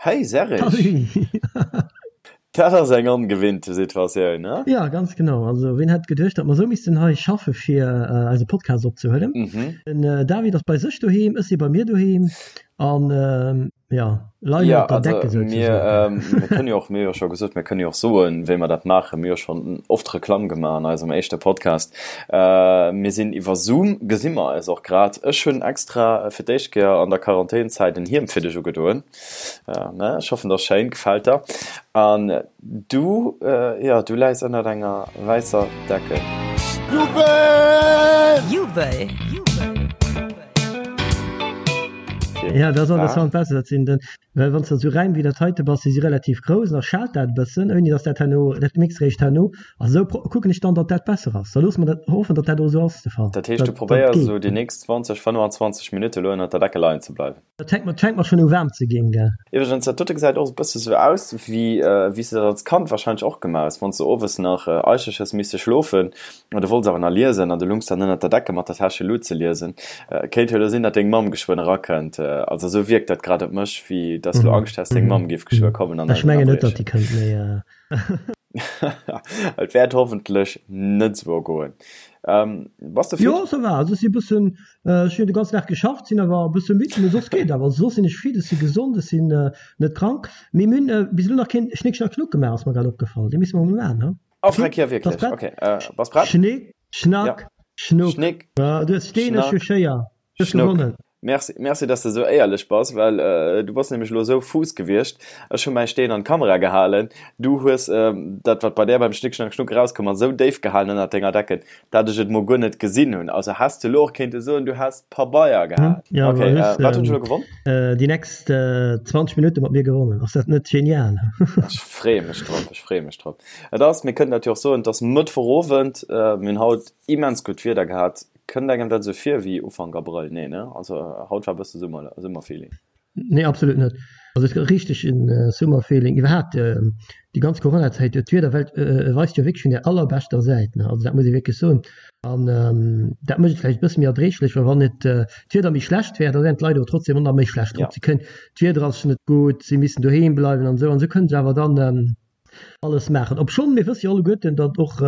Hey Serge! Dat ass eng ongewinnte Situatioun, ne? Jo, ganz genau. Also ween hätt geduecht, datt mer esou missten hei schaffe fir eise Podcast opzehuelen. Den David ass bei sech doheem, ech si bei mir doheem an jo, leien op der Decke souzesoen. Mir kënne jo och, mir hu jo scho gesot, mir kënne jo och soen, wéi mer dat maachen. Mir hu jo schonn oft Reklamm gemaach an eisem éischte Podcast. Mir sinn iwwer Zoom, gesi mer eis och grad. Ech hunn extra fir d'éischt Kéier an der Quarantänzäit en Hiem fir dech ugedoen. Ja, ne? Ech hoffen, dat ass schéin, gefält der. An du, äh, ja, du läis ënnert enger wäisser Decke. Jubel! Jubel! Ja, dat ass an besser, dat sinn den, well wann s de esou Räim wéi dat heite bass, déi si relativ grouss, da schaalt dat e bëssen, ouni datt dat herno, dat mixt réischt herno. A sou kucken ech dann, datt dat besser ass. Da loosse mer dat, hoffen, datt dat och esou ass de Fall. Dat heescht, du probéiers esou déi nächst 20, 25 Minutte elo ënnert der Decke leien ze bleiwen? Dat fänkt mer, fänkt mer schon u waarm ze ginn, gell? Iwwregens, dat dote gesäit och e bësse sou aus, wéi wéi s de dat als Kand wahrscheinlech och gemaach hues, wann s de owes nach eicheg hues misse schlofen an du wollts awer nach liesen an du lungs dann ënnert der Decke mat der Täschelut ze liesen. Kéint jo elo sinn, datt deng Mamm geschwënn erakënnt. Also esou wierkt dat grad op mech, wéi datt s du Angscht häss, deng Mamm géif geschwë kommen an Ech mengen net, datt déi kënnt, mee. Et wäert hoffentlech net esou goen. Bass de fit? Jo, ça va. Also ech si e bëssen, ech hunn de ganzen Dag geschafft, sinn awer e bësse midd, mee soss geet awer. Also soss sinn ech fit, ech si gesond, ech sinn net krank. Mee mir hunn bis elo nach keen Schnick Schnack Schnuck gemaach, ass mer grad opgefall. Dee misse mer mol maachen, he? Oh, freck, jo wierklech. Bass prett? Ok, bass prett? Schnick Schnack Schnuck. Schnick Du hues Steen, ech hu Schéier. Du hues gewonnen. Merci, merci dass de sou éierlech bass, well du bass nämlech elo sou fuuss gewiescht. Ech hu mäi Steen an d'Kamera gehalen, du hues dat wat bei där beim Schnick Schnack Schnuck erauskomm ass, sou déif gehalen ënnert denger Decken, dat ech et mol guer net gesinn hunn. Also häss de elo och kéinte soen, du häss Pabeier gehat. Ja, Ok, wat hunn ech elo gewonn? Déi nächst 20 Minutte mat mir gewonnen. Ass dat net genial? Ech freeë mech drop, ech freeë mech drop. Et ass, mir kënnen dat jo och soen, et ass Mëttwochowend, mir hunn haut immens gutt Wieder gehat. Kënnt engem dat esou vir wéi Ufank Abrëll? Nee, ne? Also haut war bësse Summer, Summerfeeling. Nee, absolut net. Also et richteg en Summerfeeling. Iwwerhaapt déi ganz Coronazäit, d'Wieder weist jo wierklech vun der allerbeschter Säit, ne? Also dat muss ee wierklech soen. An dat mécht et vläicht e bësse méi erdréiglech, well wann et d'Wieder méi schlecht wär, da wären d'Leit awer trotzdem och nach méi schlecht drop. Si kënnen, d'Wieder ass net gutt, si missen doheem bleiwen an esou an esou kënnen se awer dann alles maachen. Obschonn mir wësse jo alleguerten, datt och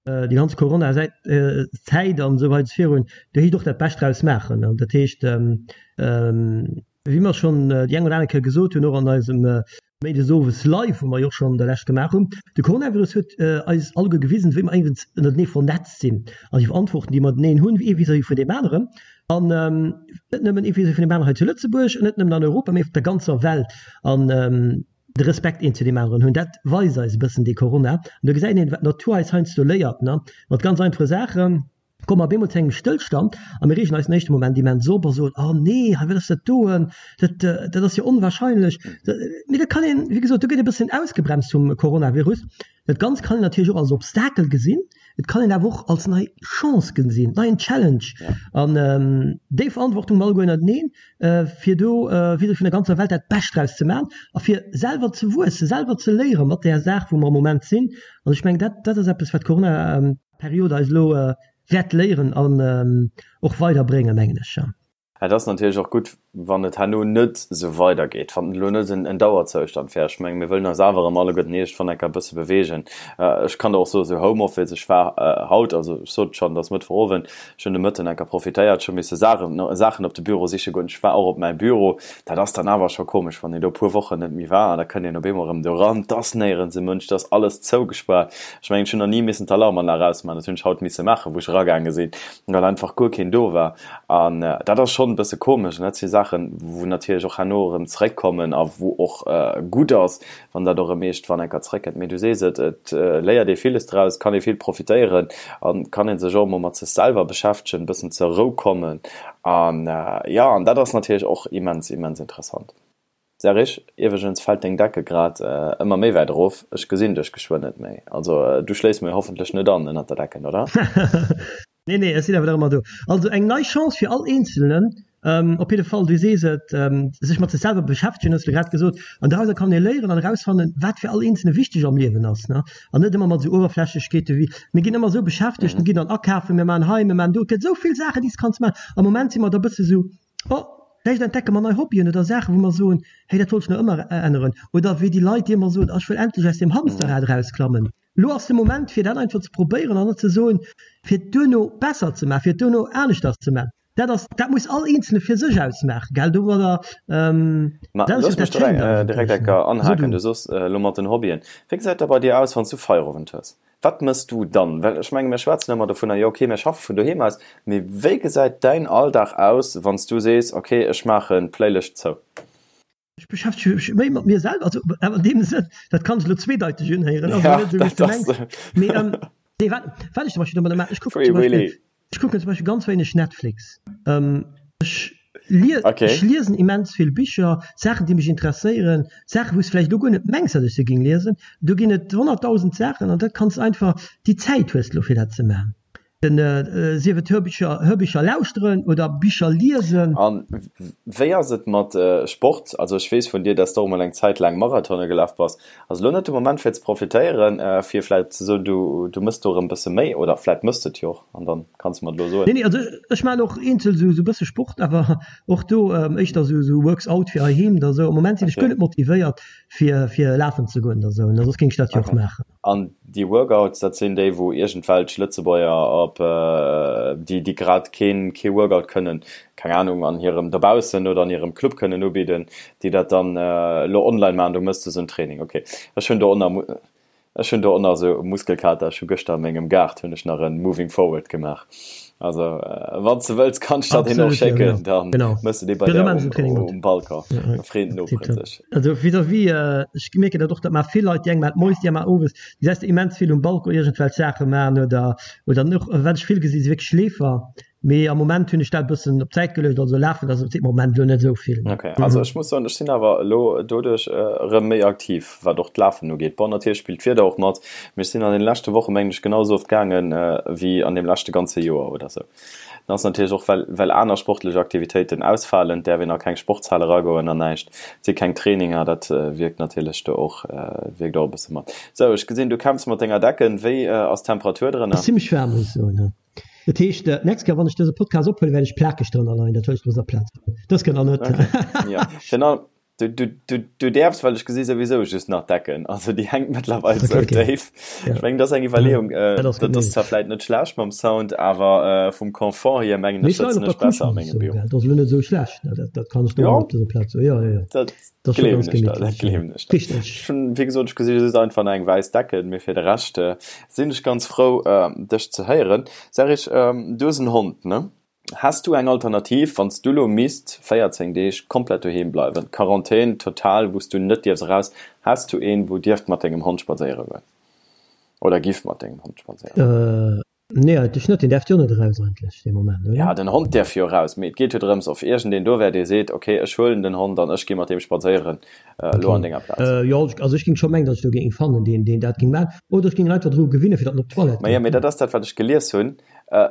déi ganz Corona Zäit an esou weider virun, do heescht och dat Bescht draus maachen. An dat heescht, wéi mer schonn déi eng oder aner Kéier gesot hunn, och an eisem Méindes owes Live, wou mer jo och schonn der lescht gemaach hunn, de Coronavirus huet eis alleguer gewisen, wéi mer éiwens ënnertenee vernetzt sinn an déi Verantwortung, déi mer ënnerteneen hunn, ee vis-à-vis vun deem aneren an net nëmmen ee vis-à-vis vun deem aneren hei zu Lëtzebuerg, net nëmmen an Europa, mee op der ganzer Welt. An de Respekt een zu deem aneren hunn, dat weist eis e bëssen dee Corona. An do gesäit een, wat d'Natur eis heiansdo léiert, ne, mat ganz einfache Saachen komme mer op eemol zu engem Stëllstand a mir reegen eis den éischte Moment immens op a soen, oh nee, hei wat ass dat doen, dat, dat ass jo onwahrscheinlech. Mee dat kann een, wéi gesot, do gëtt ee bëssen ausgebremst vum Coronavirus. Dat Ganzt kann een natierlech och als Obstakel gesinn, et kann een awer och als nei Chance gesinn, neien Challenge. An déi Verantwortung mer alleguer ënnerteneen, fir do vis-à-vis vun der ganzer Welt dat Bescht draus ze maachen a fir selwer ze wuessen, selwer ze léiere mat där Saach, wou mer am Moment sinn. An ech mengen, dat, dat ass eppes, wat d'Corona-Period eis elo wäert léieren an och weiderbréngen, mengen ech. Et ass natierlech och gutt, wann et herno net esou weidergeet, wann et elo net en Dauerzoustand wär. Ech mengen, mir wëllen eis awer erëm alleguerten iergendwann eng Kéier e bësse beweegen. Ech kann der och soen, esou Homeoffice, ech war haut, also ech sot et schonn, et ass Mëttwochowend, ech hunn de Mëtten eng Kéier profitéiert, ech hu misse Saachen, Saachen op de Büro siche goen, ech war och op mäi Büro. Dat ass dann awer scho komesch, wann een do e puer Wochen net méi war an da kënnt een op eemol erëm do eran, et ass néierens e Mënsch, et ass alles zougespaart. Ech mengen, ech hunn nach ni missen d'Alarmanlag ausmaachen, dat hunn ech haut misse maachen, wou ech eragaange sinn, well einfach guer keen do war. An dat ass schonn e bësse komesch. An dat si Saachen, wou natierlech och herno erëm zeréckkommen a wou och gutt ass, wann dat och erëm iergendwann eng Kéier zeréckkënnt. Mee du sees et, et léiert ee villes draus, kann ee vill profitéieren a kann ee sech och emol mat sech selwer beschäftegen, e bëssen zur Rou kommen. An jo, an dat ass natierlech och immens, immens interessant. Serge, iwweregens fält deng Decke grad ëmmer méi wäit erof, ech gesinn dech geschwënn net méi. Also du schléifs mir hoffentlech net an ënnert der Decken, oder? Nee, nee, ech sinn awer nach ëmmer do. Also eng nei Chance fir all Eenzelnen, op jidde Fall, du sees et, sech mat sech selwer beschäftegen, hues de grad gesot. An dorauser kann ee léieren an erausfannen, wat fir all Eenzelne wichteg am Liewen ass, ne? An net ëmmer mat esou Uewerflächlechkeete wéi, mir ginn ëmmer esou beschäftegt, mir ginn dann akafen, mir maachen hei, mir maachen do. Et gëtt esou vill Saachen, déi s de kanns maachen. Am Moment si mer da e bësse sou, Oh! Vläicht entdecke mer nei Hobbyen oder Saachen, wou mer soen, hey, dat wollt ech nach ëmmer änneren. Oder wéi déi Leit, déi ëmmer soen, ech wëll endlech aus deem Hamsterrad erausklammen. Elo ass de Moment, fir dat einfach ze probéieren an net ze soen, fir et duerno besser ze maachen, fir et duerno aneschters ze maachen. Dat ass, dat muss all Eenzele fir sech ausmaachen, gell? Domadder, Ma dat ass jo dat Schéint eigentlech, direkt eng Kéier anhaken. Du soss elo mat den Hobbyen. Wéi gesäit dat bei dir aus, wann s du Feierowend hues? Wat mëss du dann? Well ech menge mir schwätzen ëmmer dovunner, jo okay, mir schaffe vun doheem aus, mee wéi gesäit däin Alldag aus, wann s du sees, okay, ech maachen d'Playlëscht zou? Ech beschäftege mech méi mat mir selwer, also awer an deem Sënn, dat kann sech elo zweedeiteg unhéieren, also net esou wéi s de mengs, mee nee, wat wat ech zum Beispill domadder maachen, ech kucken zum Beispill, ech kucken zum Beispill ganz wéineg Netflix, ech lie ech liesen immens vill Bicher, Saachen déi mech interesséieren, Saachen wou s de vläicht elo guer net mengs, datt ech se géing liesen, do ginn et 100.000 Saachen an dat kanns einfach, déi Zäit hues de elo fir dat ze maachen. Den, sief et Hörbicher, Hörbicher lauschteren oder Bicher liesen. An wéi ass et mat Sport? Also ech weess vun dir, dass de och emol eng Zäit laang Marathone gelaf bass. Ass elo net de Moment fir ze profitéieren, fir vläit ze soen, du du mëss do erëm bësse méi? Oder vläit mëss de et jo och an dann kanns de mer et elo soen. Nee, nee, also ech maachen och eenzel esou esou bësse Sport, awer och do éischter esou esou Works-out fir heiheem oder esou. Am Moment sinn ech guer net motivéiert fir fir lafen ze goen oder esou, soss géing ech dat jo och maachen. An déi Workouts, dat sinn déi, wou iergendwelch Lëtzebuerger op, déi, déi grad keen, kee Workout kënnen, keng Anung, an hirem dobaussen oder an hirem Club kënnen ubidden, déi dat dann elo online maachen. Do méchs de esou en Training. Ok. Ech hunn do och nach, ech hunn do och nach esou Muskelkater. Ech hu gëschter a mengem Gaart hunn ech nach en Moving Forward gemaach. Also wann s de wëlls, kann ech der deen och Absolut, ja, schécken. genau. Dann Genau. méchs de dee bei Jo, da där maachen ech en um, Training mat. um Balcon. Ja, ja. Da freet den Nopere Tipptopp. sech. Also vis-à-vis, ech mierken dat och, dat maache vill Leit, déi eng maachen d'Moies, déi aner maachen owes, déi säss de immens vill um Balcon iergendwelch Saache maachen oder oder och wat ech vill gesi si wierklech Leefer, mee am Moment hunn ech dat e bëssen op d'Säit geluecht, also lafen ass am Moment elo net esou vill. Ok, also ech muss soen, ech sinn awer elo doduerch erëm méi aktiv, wat och d'Lafen ugeet. Bon, natierlech spillt d'Wieder och mat, mee ech sinn an deene leschte Woche mengen ech genau esou oft gaangen wéi an deem leschte ganze Joer oder esou. Dat ass natierlech och, well, well aner sportlech Aktivitéiten ausfalen, däerf een a keng Sportshal eragoen an näischt, et si keng Traininger, dat wierkt natierlech do och, wierkt och e bësse mat. Sou, ech gesinn, du kämpfs mat denger Decken. Wéi ass d'Temperatur drënner? Ass zimmlech waarm, muss ech soen. Dat heescht, d'nächst Kéier, wann ech dëse Podcast ophuelen, wäert ech plakeg drënner leien. Dat wëll ech dëser Plaz soen. Dës Kéier nach net. Okay, jo. Virun allem, Du, du, du, du däerfs, well ech gesi souwisou just nach d'Decken. Also déi hänkt mëttlerweil okay, sou okay. déif. Ja. Ech mengen, dat ass eng Iwwerleeung. Äh, dat ass, dat ass zwar vläit net schlecht mam Sound, awer äh, vum Confort hier mengen ech, sëtzen ech besser a mengem Büro. Dat ass elo net esou schlecht, ne? Dat, dat kann ech do ja. op dëser Plaz soen. Ja, ja, ja. Dat, dat gleewen ech der, dat gleewen ech der. Richtig. Ech hunn, wéi gesot, ech gesi just einfach nach eng wäiss Decken, mee fir de Rescht äh, sinn ech ganz frou, äh, dech ze héieren. Sag ech, ähm, du hues en Hond, ne? Häss du eng Alternativ, wann s du lo misst 14 Deeg komplett doheem bleiwen, Quarantän total, wou s du net dierfs eraus, häss du een, wou dierft mat dengem Hond spadséiere goen? Oder giff mat dengem Hond spadséiere goen? Nee, eigentlech net. Deen däerft jo net eraus eigentlech dee Moment, oder? Ja, den Hond däerf jo eraus, mee et geet jo drëms, of iergendeen do wär, dee seet, ok, ech huelen den Hond an ech gi mat deem spadséieren elo an denger Plaz. Jo, also ech géing scho mengen, datt ech do géing ee fannen, deen, deen dat géing maachen. Oder ech géing en einfach dru gewinnen, fir datt en op d'Toilette Maja, mee dat ass dat, wat ech gelies hunn.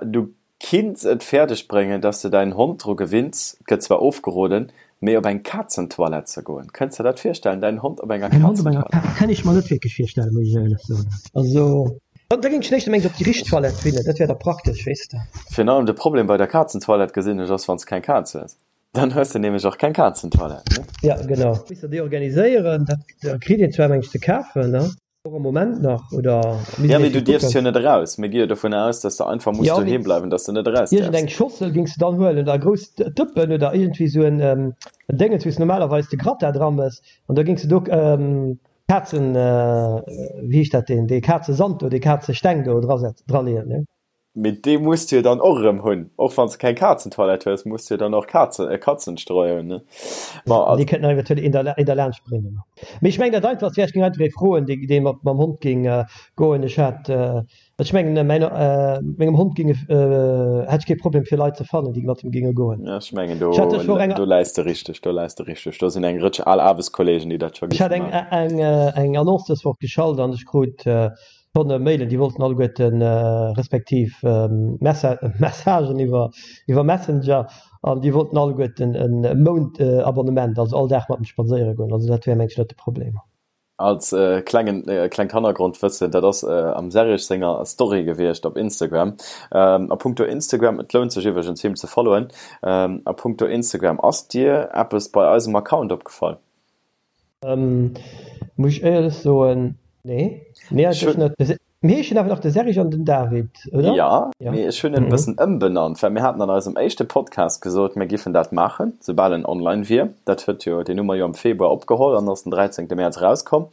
Du Kinns et fäerdeg bréngen, dass de däin Hond dru gewinns, gëtt zwar ofgeroden, mee op eng Kazentoilette ze goen. Kënns de dat virstellen, däin Hond op enger Mäin Hond op enger Kazentoilette? Kann ech mer net wierklech virstellen, muss ech éierlech soen. Also, da géing ech éischter mengen, op déi richteg Toilette winnen, dat wär da praktesch, weess de. Virun allem de Problem bei der Kazentoilette gesinn ech ass, wann s keng Kaz hues. Dann hues de nämlech och keng Kazentoilette, ne? Ja, genau. Misst der déi organiséieren, dat kritt een zwar, meng ech, ze kafen, ne? Och am Moment nach, oder misst Ja, mee du dierfs jo net eraus. Mir gi jo dovun aus, dass de einfach muss doheem bleiwen, dass de net eraus däerfs. Iergendeng Schossel géings de dann huelen oder e grousst Dëppen oder iergendwéi sou en Déngens, wou s de normalerweis de Gratin dra mëss an da géings de do Kazen, wéi heescht dat, deen, dee Kazesand do, dee Kazesteng do draleeën, ne? Mee dee muss du jo dann och erëm hunn. Och wann s de keng Kazentoilette hues, muss du jo dann och Kazen, e Kazenstreu hunn, ne? Bon, also. Dee kënnt nach eventuell een der, een derlaanscht bréngen. Mee ech mengen, dat einfachst wär, ech géing einfach ee froen, dee, dee mat mam Hond géing goen. Ech hat, ech mengen, mäin, mengem Hond géinge, hätt ech kee Problem fir Leit ze fannen, déi mat him géinge goen. Ja, ech mengen, do, do läis de richteg, do läis de richteg. Do sinn eng Rëtsch al Aarbechtskollegen, déi dat scho Ech hat géife eng, maachen. eng, eng Annonce dës Woch geschalt an ech krut Tonne Mailen, déi wollten alleguerten, respektiv Messagen iwwer Messenger, an déi wollten alleguerten e Mount Abonnement, also all Dag mat em spadséiere goen. Also dat wär mengen ech net de Problem. Als klengen, klengt Hannergrondwëssen, dat ass am Serge senger Story gewiescht op Instagram. A punkto Instagram, et lount sech iwwregens him ze followen, a punkto Instagram, ass dir eppes bei eisem Account opgefall? Muss ech éierlech soen, nee. Nee, eigentlech net. Mir heeschen awer nach de Serge an den David, oder? Jo, mee ech hunn en e bëssen ëmbenannt, well mir haten an eisem éischte Podcast gesot, mir giffen dat maachen, soubal en online wier. Dat huet jo, deen hu mer jo am Februar opgeholl an ass den 13. Mäerz erauskomm.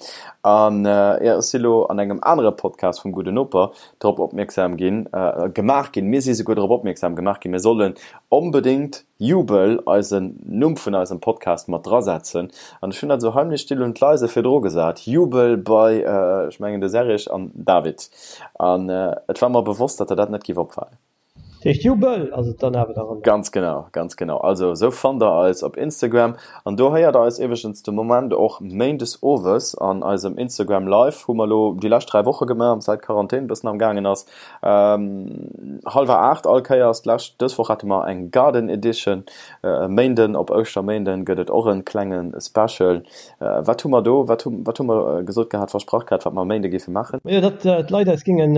An jo, ech si lo an engem anere Podcast vum Gudden Noper drop opmierksam ginn, gemaach ginn, mir si souguer drop opmierksam gemaach ginn, mir sollen onbedéngt Jubel eisen Numm vun eisem Podcast mat drasetzen an ech hunn dat esou heimlech still und leise virdru gesat, Jubel bei, ech mengen de Serge an David an et war mer bewosst, datt der dat net giff opfalen. Dat heescht Jubel ass et dann awer nach ëmmer? Ganz genau, ganz genau. Also esou fannt der eis op Instagram an do héiert der eis iwweregens de Moment och méindes owes an eisem Instagram Live, hu mer elo déi lescht 3 Woche gemaach, säit d'Quarantän e bëssen am gaangen ass. Hallwer 8 all Kéiers. D'lescht, dës Woch hate mer eng Garden Edition. E Méinden, op Ouschterméinden, gëtt et och en klenge Special. Wat hu mer do, wat hu, wat hu mer gesot gehat, versprach gehat, wat mer e Méinde géife maachen? Majo, datt d'Leit eis gingen,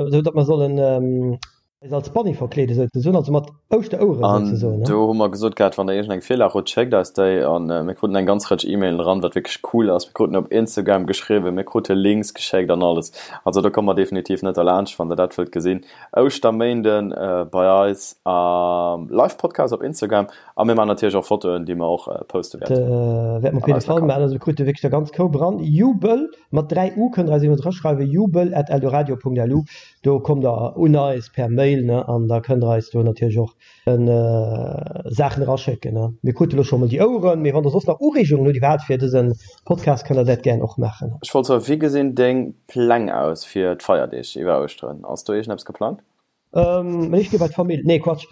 esou datt mer sollen eis als Bunny verkleeden, souzesoen, also mat Ouschteroueren, An souzesoen, ne? do hu mer gesot gehat, wann der iergendeng Virlag hutt, schéckt eis déi. An mir kruten eng ganz Rëtsch E-Mailen eran, wat wierklech cool ass. Mir kruten op Instagram geschriwwen, mir krute Links geschéckt an alles. Also do komme mer definitiv net derlaanscht, wann der dat wëllt gesinn. Ouschterméinden bei eis am Live-Podcast op Instagram. A mir maachen natierlech och Fotoen, déi mer och poste wäerten. Dat wäerte mer op jidde Fall maachen. Also mir krute wierklech der ganz Koup eran. Jubel mat 3 U kënnt der eis eben eraschreiwen, jubel at eldoradio.lu. Do kommt der un eis per Mail, ne, an da kënnt der eis do natierlech och Saachen eraschécken, ne. Mir krute lo scho mol déi Oueren, mee wann der soss nach Ureegungen hutt iwwerhaapt fir dëse Podcast, kënnt der dat gären och maachen. Ech wollt soen, wéi gesinn deng Pläng aus fir d'Feierdeeg iwwer Ouschteren? Ass do iergendeppes geplangt? Ech gi bei d'Famill. Nee, Quatsch.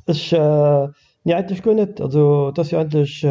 Ech, nee eigentlech guer net. Also et ass jo eigentlech,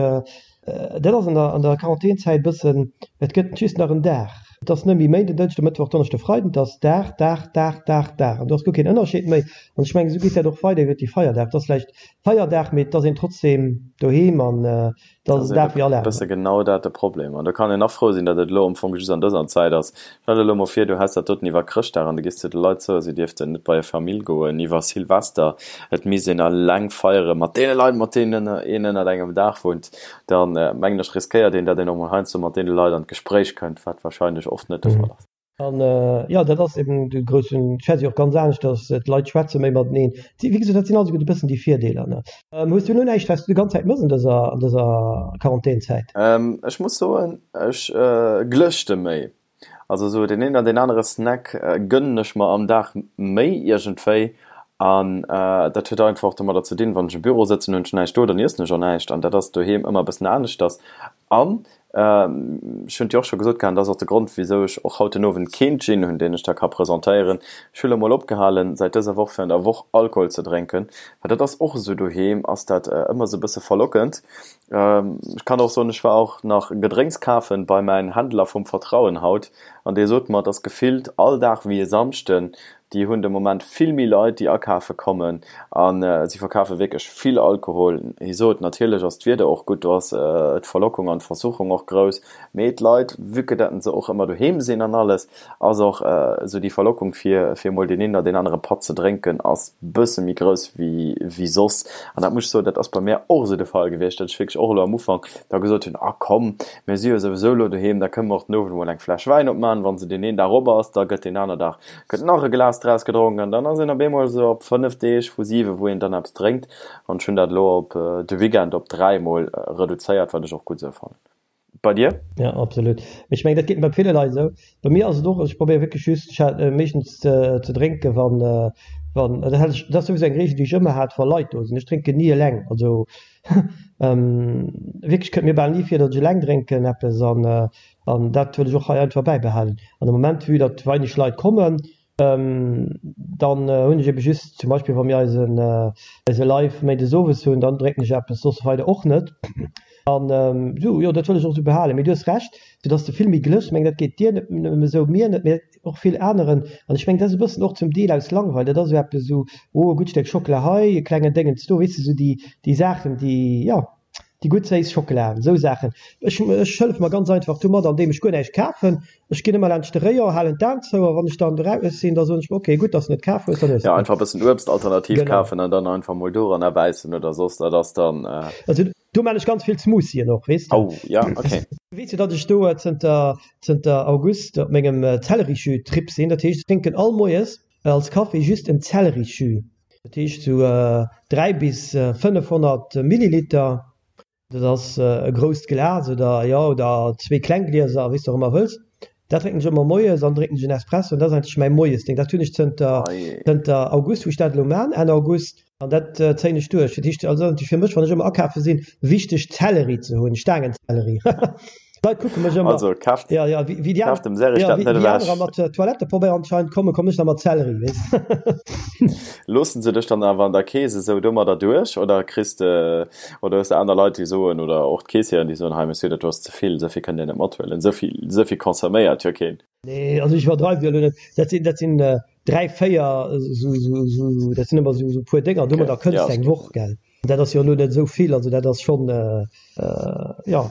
dat ass an der an der Quarantänzäit e bëssen, et gëtt just nach en Dag. Et ass net méi Méinden, Dënschde, Mëttwoch, Donneschde, Freiden, et ass Dag, Dag, Dag, Dag, Dag an do ass guer keen Ënnerscheed méi. An ech mengen, esou geet dat och weider iwwert déi Feierdag. Et ass vläicht Feierdag, mee et ass een trotzdeem doheem an Dat ass e bësse genau dat de Problem. An do kann een nach frou sinn, datt et elo am Fong just an dëser Zäit ass. Stell der elo mol vir, du häss dat doten iwwer Chrëschtdag an du gees zu de Leit soen, si dierften net bei hir Famill goen iwwer Silvester, et misst een eleng feiere mat deene Leit, mat deenen een ënnert engem Daach wunnt. Da mengen ech, riskéiert een, datt een och mol heiansdo mat deene Leit an d'Gespréich kënnt, wat warscheinlech oft net de Fall ass. An jo, dat ass eben de groussen, ech schwätze jo och ganz aneschters, d'Leit schwätze méi mateneen. Wéi gesot, dat sinn also e bëssen déi Virdeeler, ne. Hues du elo näischt, wat s du déi ganz Zäit mëss an dëser, an dëser Quarantänzäit? Ech muss soen, ech glëschte méi. Also esou deen een oder deen anere Snack gënnen ech mer am Dag méi iergendwéi. An dat huet einfach och domadder ze dinn, wann ech am Büro sëtzen, hunn ech näischt do, dann iessen ech och näischt. An dat ass doheem ëmmer e bëssen aneschters. An ech hunn et jo och scho gesot gehat, an dat ass och de Grond, wisou ech och haut den Owend keen Gin hunn, deen ech da ka presentéieren, ech hu lo mol opgehalen, säit dëser Woch fir an der Woch Alkohol ze drénken, well dat ass och esou, doheem ass dat ëmmer esou e bësse verlockend. Ech kann och soen, ech war och nach Gedrénks kafen bei mäin Händler vum Vertrauen haut, an dee sot mer, et ass gefillt all Dag wéi e Samschden, Déi hunn de Moment vill méi Leit, déi akafe kommen a si verkafe wierklech vill Alkohol. Hie sot, natierlech ass d'Wieder och gutt, do ass d'Verlockung an d'Versuchung och grouss, mee d'Leit, vue que datt se och ëmmer doheem sinn an alles, ass och esou déi Verlockung fir fir emol deen een oder deen anere Patt ze drénken ass bësse méi grouss wéi wéi soss. An dat muss ech soen, dat ass bei mär och esou de Fall gewiescht, datt ech wierklech och elo am Ufank da gesot hunn, ah komm, mir si jo souwisou elo doheem, da kënne mer och den Owend emol eng Fläsch Wäin opmaachen, wa se deen een Dag op ass, da gëtt deen aner Dag gëtt nach e Glas draus gedronk an dann ass een op eemol esou op 5 Deeg vu 7 wou een dann eppes drénkt an ech hunn dat elo op de Weekend op 3 mol reduzéiert, wat ech och gutt esou fannen. Bei dir? Ja absolut, mee ech mengen dat geet bei ville Leit esou. Bei mir ass et och, ech probéiere wierklech just, ech hat meeschtens ze drénke wann wann dat hat ech, dat ass souwisou eng Reegel déi ech ëmmer hat wa Leit do sinn, ech drénken ni eleng, also wierklech kënnt mir bal ni vir datt ech eleng drénken eppes an An dat wëll ech och hei einfach bäibehalen. An de Moment, vue datt weineg Leit kommen, dann hunn ech ebe just zum Beispill, wa mir eisen, eise Live méindes owes hunn, dann drénken ech eppes, soss weider och net. An esou, jo, dat wëll ech och esou behalen. Mee du hues Recht, soudatt s de vill méi glëschs. Ech mengen, dat geet dir net nëmme esou, mir net, mee och vill aneren. An ech mengen, dat ass e bëssen och zum Deel aus Langweil. Dat ass esou eppes esou, oh, e gutt Stéck Schockela hei, e klengen Déngens do, weess de, esou déi, déi Saachen, déi, jo. Déi gutt séiss Schockela, esou Saachen. Ech ech hëllef mer ganz einfach domat, andeem ech guer näischt kafen. Ech ginn ëmmer laanscht de Rayon, halen d'Aen zou a wann ech dann eraus sinn, da soen ech mer, ok, gutt, dass de net kaf hues, dann hues de Ja, einfach e bëssen Uebst alternativ Genau. kafen an dann einfach mol doranner bäissen oder soss, dat ass dann. Also do maan ech ganz vill Smoothien och, weess de. Oh, ja, ok. Weess jo, datt ech do zënter zënter August op mengem Zellerijus-Trip sinn. Dat heescht, ech drénken all Moies als Kaffi just en Zellerijus. Dat heescht sou 3 bis 500 Milliliter, dat ass e grousst Glas oder jo oder zwee kleng Glieser, wéi s de och ëmmer wëlls. Dat drénken ech ëmmer moies an drénken ech en Espresso an dat ass eigentlech mäi Moiesdéng. Dat hunn ech zënter zënter August, wou ech dat elo man, Enn August, an dat zéien ech duerch. Dat heescht also fir mech, wann ech ëmmer akafe sinn, wichteg Zelleri ze hunn, Staangenzelleri. D'Leit kucke mech ëmmer. Also kaaft, ja, ja, wéi, wéi déi kaaft dem Serge ja, dat net ewech. Anerer mat Toilettepabeier anscheinend kommen, kommen ech da mat Zelleri, weess. Loossen se dech dann awer an der Kees esou domadder duerch oder kriss de, oder hues de aner Leit déi soen, oder och d'Keessieren déi soen, hei Monsieur, dat do ass ze vill, esou vill kënnt Dir net mathuelen, esou vill, esou vill consomméiert jo keen. Nee, also ech iwwerdreiwe jo elo net. Dat sinn, dat sinn 3, 4 esou, esou, esou, dat sinn ëmmer esou, esou puer Dénger, domadder kënns de eng Woch, gell. Dat ass jo elo net esou vill, also dat ass schonn, jo,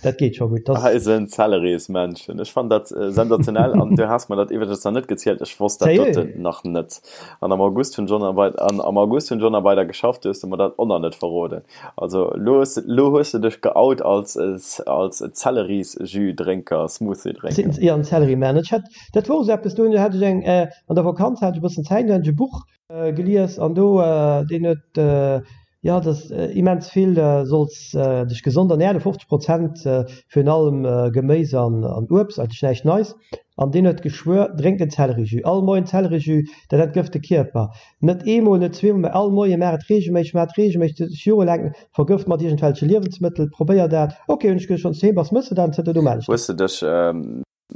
dat geet scho gutt. Eisen Zellerismännchen, ech fannen dat sensationell an du has mer dat iwwregens nach net gezielt, ech wosst dat doten nach net an am August hunn ech och nach wei an am August hunn ech och nach weider geschafft, du hues de mer dat och nach net verroden. Also elo hues de elo hues de dech geout als als Zellerisjus-Drénker, Smoothie-Drénker. Jo, en Zellerimänn. Ech hat, dat wor esou eppes, do hat ech eng, an der Vakanz hat ech e bëssen Zäit, do hat ech e Buch Gelies an do deen huet jo dass immens vill solls dech gesond ernähren, 50 Prozent virun allem Geméis an Uebst, eigentlech näischt Neis, an deen huet geschwuer drénk den Zellerijus, all Moien Zellerijus, dat entgëft de Kierper, net eemol, net zweemol, mä all Moien, maach et reegelméisseg, maach et reegelméisseg, dech jorelaang vergëft mat iergendwelche Liewensmëttel, probéier dat, ok hunn ech gesot, wann s du heem bass mëss de dat an zënter do maan ech dat. Hues de dech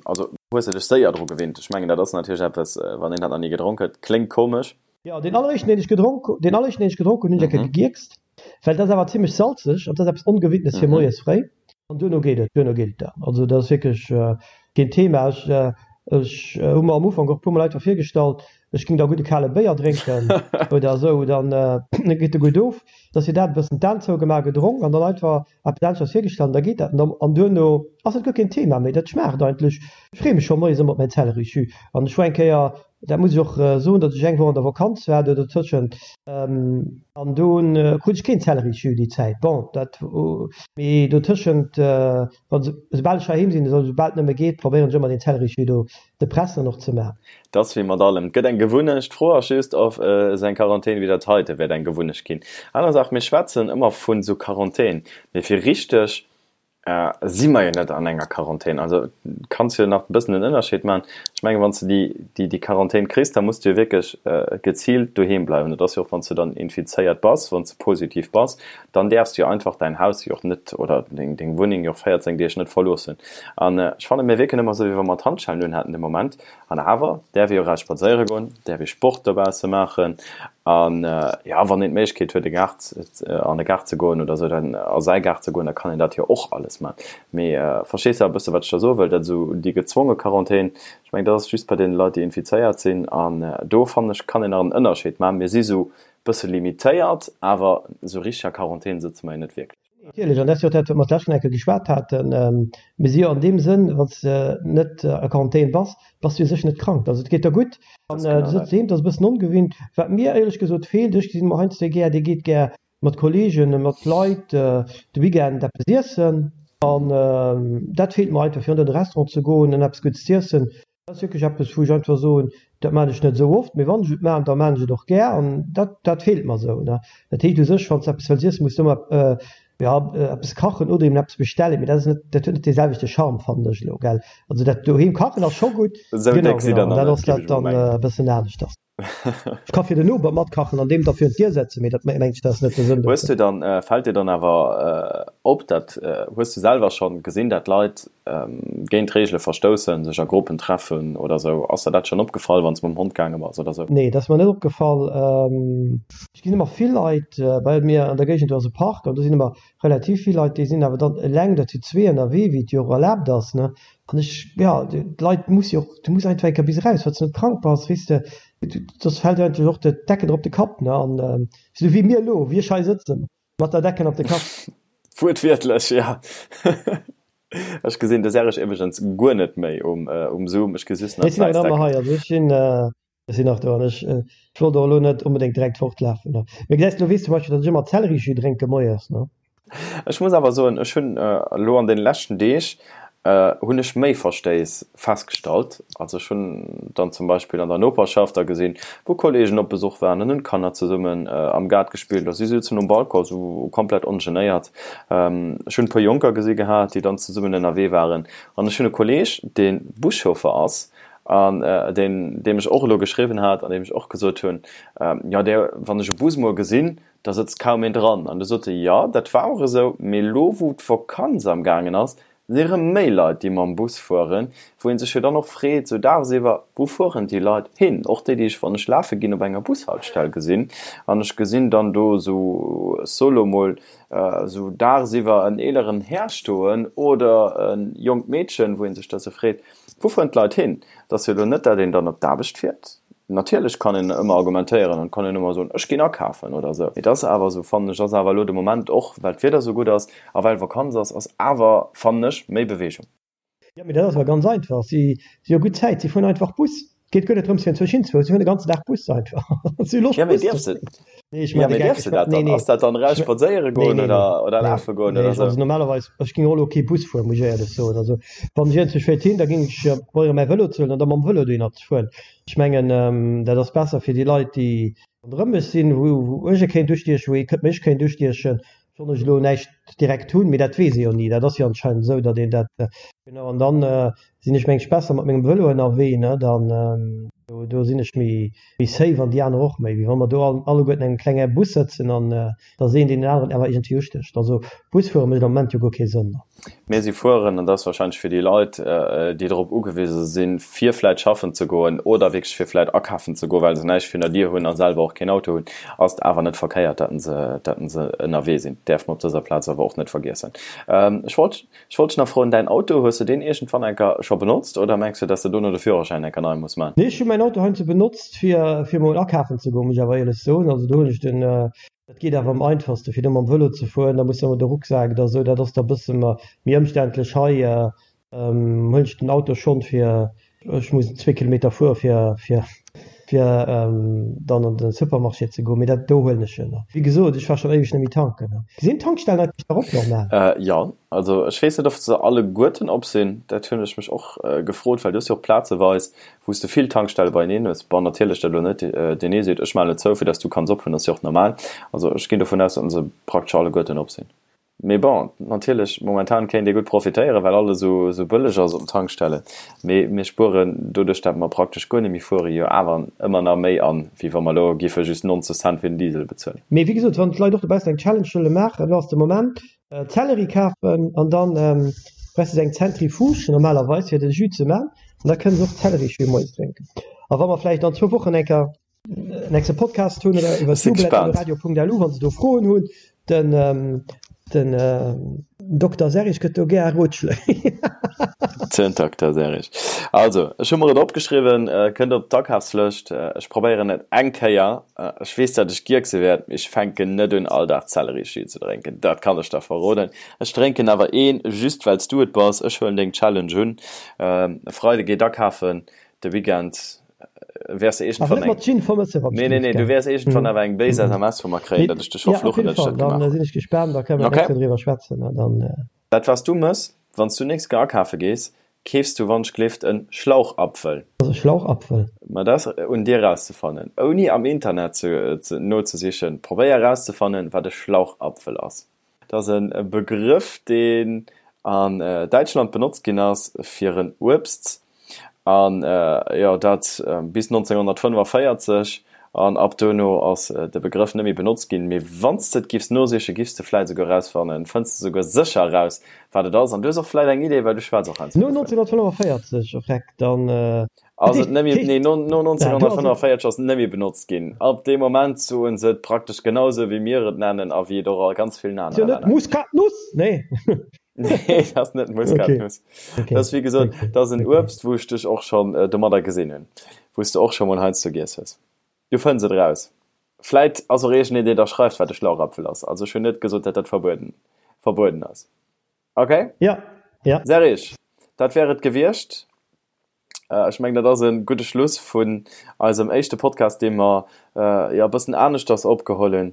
Also hues de dech séier dru gewinnt? Ech mengen dat ass natierlech eppes, wann een dat nach ni gedronk huet, kléngt komesch. Jo, deen alleréischten deen ech gedronk, deen alleréischten deen ech gedronk hunn, hunn ech eng Kéier gegierkst, well dat ass awer zimlech salzeg an dat ass eppes Ongewinntes fir moies fréi. An duerno geet et, duerno geet et dann. Also dat ass wierklech keen Thema. Ech, ech hu mer am Ufank och e puer mol einfach virgestallt, ech géing da gutt e kale Béier drénken oder esou, dann geet e gutt of. Da ass fir dat e bëssen d'Aen zougemaach, gedronk an dann einfach Eppes aneschters virgestallt an da geet dat an duerno ass et guer keen Thema méi. Dat schmaacht eigentlech. Ech freeë mech scho moies ëmmer op mäin Zellerijus an ech war eng Kéier, dat muss ech och soen, datt ech eng Woch an der Vakanz war do dotëschent an do krut ech keen Zellerijus déi Zäit. Bon, dat mee dotëschent, wann esoubal ech heiheem sinn, esoubal et nëmme geet, probéieren ech ëmmer deen Zellerijus do ze pressen an och ze maachen. Et ass wéi mat allem, et gëtt eng Gewunnecht. D'Fro ass just, ob esou eng Quarantän wéi dat heite wäert eng Gewunnecht ginn. Aner Saach, mir schwätzen ëmmer vun esou Quarantän, mee fir richteg si mer jo net an enger Quarantän. Also kanns jo nach e bëssen den Ënnerscheed maachen. Ech mengen, wann s de déi, déi Quarantän kriss, da muss du jo wierklech geziilt doheem bleiwen. Dat ass jo och, wann s du dann infizéiert bass, wann s de positiv bass, dann däerfs du jo einfach däin Haus jo och net oder deng Wunneng jo och 14 Deeg net verloossen. An ech fannen, mir wierken ëmmer esou, wéi wa mer d'Handschellen un hätten de Moment. An awer däerf ee jo eraus spadséiere goen, däerf ee Sport dobausse maachen. An jo, wann een d'Méiglechkeet huet, e Gaart, an e Gaart ze goen oder esou, dann a säi Gaart ze goen, da kann een dat jo och alles maachen. Mee verstees de e bësse, wat ech da soe wëll? Dat esou déi gezwonge Quarantän, ech mengen, dat ass just bei deene Leit, déi infizéiert sinn. An do, fannen ech, kann een nach en Ënnerscheed maachen. Mir si sou bësse limitéiert, awer esou richteg a Quarantän sëtze mer jo net wierklech. Natierlech, an dat ass jo och dat, wat mer d'lescht Kéier geschwat haten. Mir si jo an deem Sënn, wann s de net a Quarantän bass, bass du u sech net krank. Also et geet der gutt an du sëtz doheem, dat ass e bëssen ongewinnt. Wat mir éierlech gesot feelt, ech gesinn emol heiansdo gär, dee geet gär mat Kolleegen, mat Leit de Weekend eppes iessen an dat feelt mer einfach, fir an de Restaurant ze goen an eppes Guddes z'iessen. Dat ass wierklech eppes, wou ech einfach soen, dat maachen ech net esou oft, mee wann ech et maachen, da maachen ech et och gär an dat, dat feelt mer esou. Dat heescht u sech, wann s de eppes wëlls iessen, muss de ëmmer, jo, eppes kachen oder eben eppes bestellen, mee dat ass net, dat huet net dee selwechte Charme, fannen ech elo, gell. Also dat doheem kachen ass scho gutt, Esou genau, déck sidd genau, der an nach dat net, ass géif dat ech mol dann mengen. e bëssen aneschters. Ech ka fir den Noper matkachen an deem da virun d'Dier setzen, mee dat mengen ech, dat ass net de Sënn Hues dovun. du dann, fält dir dann awer op, dat hues du selwer schonn gesinn, dat Leit géint d'Reegele verstoussen, sech a Gruppen treffen oder sou? Ass der dat schonn opgefall, wann s de mam Hond gaange bass oder sou? Nee, dat ass mer net opgefall. Ech gesinn ëmmer vill Leit, bei mir an der Géigend do ass e Park an do sinn ëmmer relativ vill Leit, déi sinn awer dann eleng oder zu zwee ënnerwee, wéi et jo och erlaabt ass, ne. An ech, jo, d'Leit muss jo och, du muss einfach eng Kéier bis eraus, wann s de net krank bass, weess de, soss fält dir eigentlech och d'Decken op de Kapp, ne? An esou wéi mir elo, wéi ech hei sëtzen, mat der Decken op de Kapp. Wuertwiertlech, ja. Ech gesinn de Serge iwwregens guer net méi um, um Zoom. Ech gesi just nach Ech sinn awer nach ëmmer hei. Also ech sinn, ech sinn nach do an ech, ech wollt och elo net onbedéngt direkt fortlafen. Mee gesäis, elo weess zum Beispill, datt ech ëmmer Zellerijus drénke moies, ne? Ech muss awer soen, ech hunn elo an deene leschten Deeg hunn ech méi Verstéiss festgestallt. Also ech hunn dann zum Beispill an der Noperschaft da gesinn, wou Kolleegen op Besuch waren an hunn d'Kanner zesummen am Gaart gespillt a si souzen um Balcon esou komplett ongenéiert. Ech hunn e puer Jonker gesi gehat, déi dann zesummen ënnerwee waren. An ech hunn e Kolleeg, dee Buschauffer ass an deen, deem ech och elo geschriwwen hat an deem ech och gesot hunn, jo, dee, wann ech e Bus muer gesinn, da sëtzt kaum een dran. An du sot e, jo, dat war och esou, mee elo wou d'Vakanz am gaangen ass, si erëm méi Leit, déi mam Bus fueren, wou ee sech jo dann och freet, esou dagsiwwer, wou fueren déi Leit hin? Och déi, déi ech, wann ech lafe ginn, op enger Bushaltestell gesinn an ech gesinn dann do esou, ech soe lo mol, esou dagsiwwer en eeleren Här stoen oder e jonkt Meedchen, wou ee sech da sou freet, Wou fueren d'Leit hin? Et ass jo elo net, dat een dann op d'Aarbecht fiert. Natierlech kann een ëmmer argumentéieren an kann een ëmmer soen, ech ginn akafen oder esou. Mee et ass awer esou, fannen ech, ass awer elo de Moment, och well d'Wieder esou gutt ass a well Vakanz ass, ass awer, fannen ech, méi Beweegung. Jo, mee dat ass awer ganz einfach. Si si hu gutt Zäit, si fueren einfach Bus. Et geet guer net drëms, fir enzwousch hinzefueren, si fueren de ganzen Dag Bus einfach. Si hu Loscht, Bus ze fueren. Nee, ech maachen de Geck. Dierfs de dat dann? Ass dat dann eraus spadséiere goen oder oder lafe goen oder esou? Also normalerweis, ech géing och elo kee Bus fueren, muss ech éierlech soen. Also wann ech iergendwou wéilt hin, da géing ech probéieren, mäi Vëlo ze huelen an da mam Vëlo dohinner ze fueren. Ech mengen, dat ass besser fir déi Leit, déi ronderëm mech sinn, wou wou ech e kéint ustiechen, wou ee mech kéint ustiechen, sollt ech elo näischt direkt hunn. Mee dat weess ee jo ni. Dat ass jo anscheinend esou, datt een dat, genau. An dann sinn ech mengs besser mat mengem Vëlo ënnerwee, ne, dann do do sinn ech méi méi safe an déi aner och méi, wéi wa mer do all alleguerten an engem klenge Bus sëtzen an da ass een deen aneren awer iergendwéi ustécht. Also Bus fuere mécht am Moment jo guer kee Sënn. Mir si fueren, an dat ass wahrscheinlech fir déi Leit, déi drop ugewise sinn, fir vläit schaffen ze goen oder wierklech fir vläit akafen ze goen, well se näischt virun der Dier hunn a selwer och keen Auto hunn, ass et awer net verkéiert, datt se datt se ënnerwee sinn. Däerf mer op dëser Plaz awer och net vergiessen. Ech wollt Ech wollt dech nach froen, däin Auto, hues de deen iergendwann enker scho benotzt oder mengs du, dass de dono de Führerschäin enker nei muss man? Nee, ech hu mäin Auto heiansdo benotzt fir fir mol akafen ze goen, muss ech awer éierlech soen. Also do hunn ech den, dat geet awer am einfachste fir do mam Vëlo ze fueren, da muss de ëmmer de Rucksak oder esou, dat ass da bësse méi ëmständlech. Hei huelen ech den Auto schonn fir Ech muss zwee Kilometer fuere fir fir fir dann an de Supermarché ze goen, mee dat do huelen ech jo nach. Wéi gesot, ech war schonn éiweg net méi tanken. Sinn d'Tankstellen eigentlech nach op normal? Jo, also ech weess net of se alleguerten op sinn, dat hunn ech mech och gefrot, well du hues jo och plazeweis wou s de vill Tankstelle beieneen hues. Bon, natierlech dat elo net deen ee seet ech maachen et zou fir dass du kanns ophunn, ass jo och normal. Also ech ginn dovun aus, datt se praktesch alleguerten op sinn. Mee bon, natierlech, momentan kéint ee gutt profitéieren, well alles esou esou bëlleg ass op den Tankstellen. Mee mir spueren doduerch, dat mer praktesch guer net méi fueren, jo awer ëmmer nach méi an, wéi wa mer elo giffe just 90 Cent fir den Diesel bezuelen. Mee wéi gesot, wann d'Leit och dobaussen eng Challenge wëlle maachen, elo ass de Moment, Zelleri kafen an dann brauchs de eng Zentrifuge normalerweis fir de Jus ze man an da kënne se och Zellerijus moies drénken. A wa mer vläicht an zwou Wochen eng Kéier nächste Podcast hunn oder iwwer radio.lu wann se do Froen hunn den ähm, den äh, Dr Serich gëtt do gär Rotschléi. Den Dr Serich. Also ech hu mer et opgeschriwwen, äh, kënnt op d'Akafslëscht. Äh, ech probéieren et eng Kéier. Äh, ech weess, datt ech gierkse wäert, mee ech fänken net un all Dag Zellerijus ze drénken. Dat kann ech der verroden. Ech drénken awer een, just well s du et bass. Ech huelen deng Challenge un. Ähm, e Freide geet akafen, de Weekend wäers de iergendwann eng. Nee, nee, nee, du wäers iergendwann awer eng béis SMS vu mer kréien, datt ech dech verfluchen, datt ech dat gemaach hunn. Dann sinn ech gespaant, da kënne mer nächst Kéier driwwer schwätzen an dann. Dat wat s du mëss, wann s du nächst Kéier akafe gees, keefs du wannschglift en Schlauchapfel. Wat ass e Schlauchapfel? Ma dat ass un dir erauszefannen, ouni am Internet nozesichen. Probéier erauszefannen, wat e Schlauchapfel ass. Dat ass e Begrëff, deen an Däitschland benotzt ginn ass fir en Uebst, an jo dat bis 1945, an ab duerno ass de Begrëff net méi benotzt ginn. Mee wann s de et giffs nosichen, giffs de vläit esouguer erausfannen, fënns de esouguer sécher eraus, wat et ass. An du hues och vläit eng Idee, well du schwätz och heiansdo No dovun. 1945, oh vreck, dann. Ass et net méi, nee, no 1945 ass et net méi benotzt ginn. Ab deem Moment soen se et praktesch genau esou, wéi mir et nennen a wéi et och a ganz villen anere Länner gëtt. Muskatnuss? Nee. Nee, dat ass net Muskatnuss. Dat ass, wéi gesot, dat ass en Uebst, wou ech dech och schonn domadder gesinn hunn, wou s de och scho mol heiansdo giess hues. Du fënns et eraus. Vläit ass och iergendeen, deen da schreift, wat e Schlauchapfel ass. Also ech hunn net gesot, datt dat verbueden. verbueden ass. Okay? Ja, ja. Serge, dat wär et gewiescht. Ech mengen, dat ass e gudde Schluss vun eisem éischte Podcast, dee mer jo e bëssen aneschters opgeholl hunn,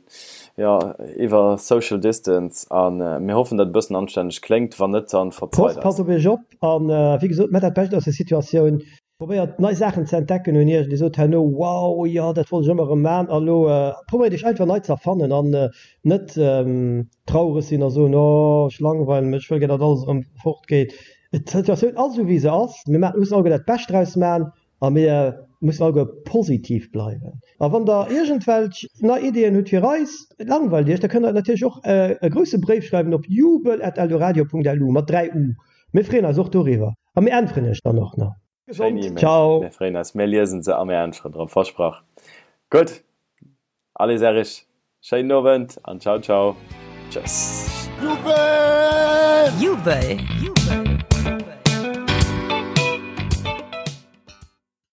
jo, iwwer Social Distance. A mir hoffen, datt et e bëssen anstänneg kléngt. Wann net, dann verzeit eis. Passt op iech op an, wéi gesot, maacht dat Bescht aus der Situatioun. Probéiert nei Saachen ze entdecken un iech. Dir sot herno, Wow, jo, dat wollt ech ëmmer erëm maachen. A lo probéiert iech einfach nei ze erfannen an net traureg sinn a soen, Oh, ech langweilen mech, ech wëll gär, datt alles erëm fortgeet. D'Situatioun ass esou wéi se ass. Mir maachen, mussen alleguer dat Bescht draus maachen a mir mussen alleguer positiv bleiwen. A wann der iergendwelch nei Ideeën hutt fir eis, et langweilt iech, da kënnt der natierlech och e grousse Bréif schreiwen op jubel@eldoradio.lu, mat 3 u. Mir freeën eis och doriwwer a mir äntweren iech dann och nach. Schéin E-Mail. Ciao. Mir freeën eis. Mir liesen se a mir äntweren drop. Versprach. Gutt. Allez Erich, schéinen Owend an ciao ciao. Tschëss. Jubel! Jubel!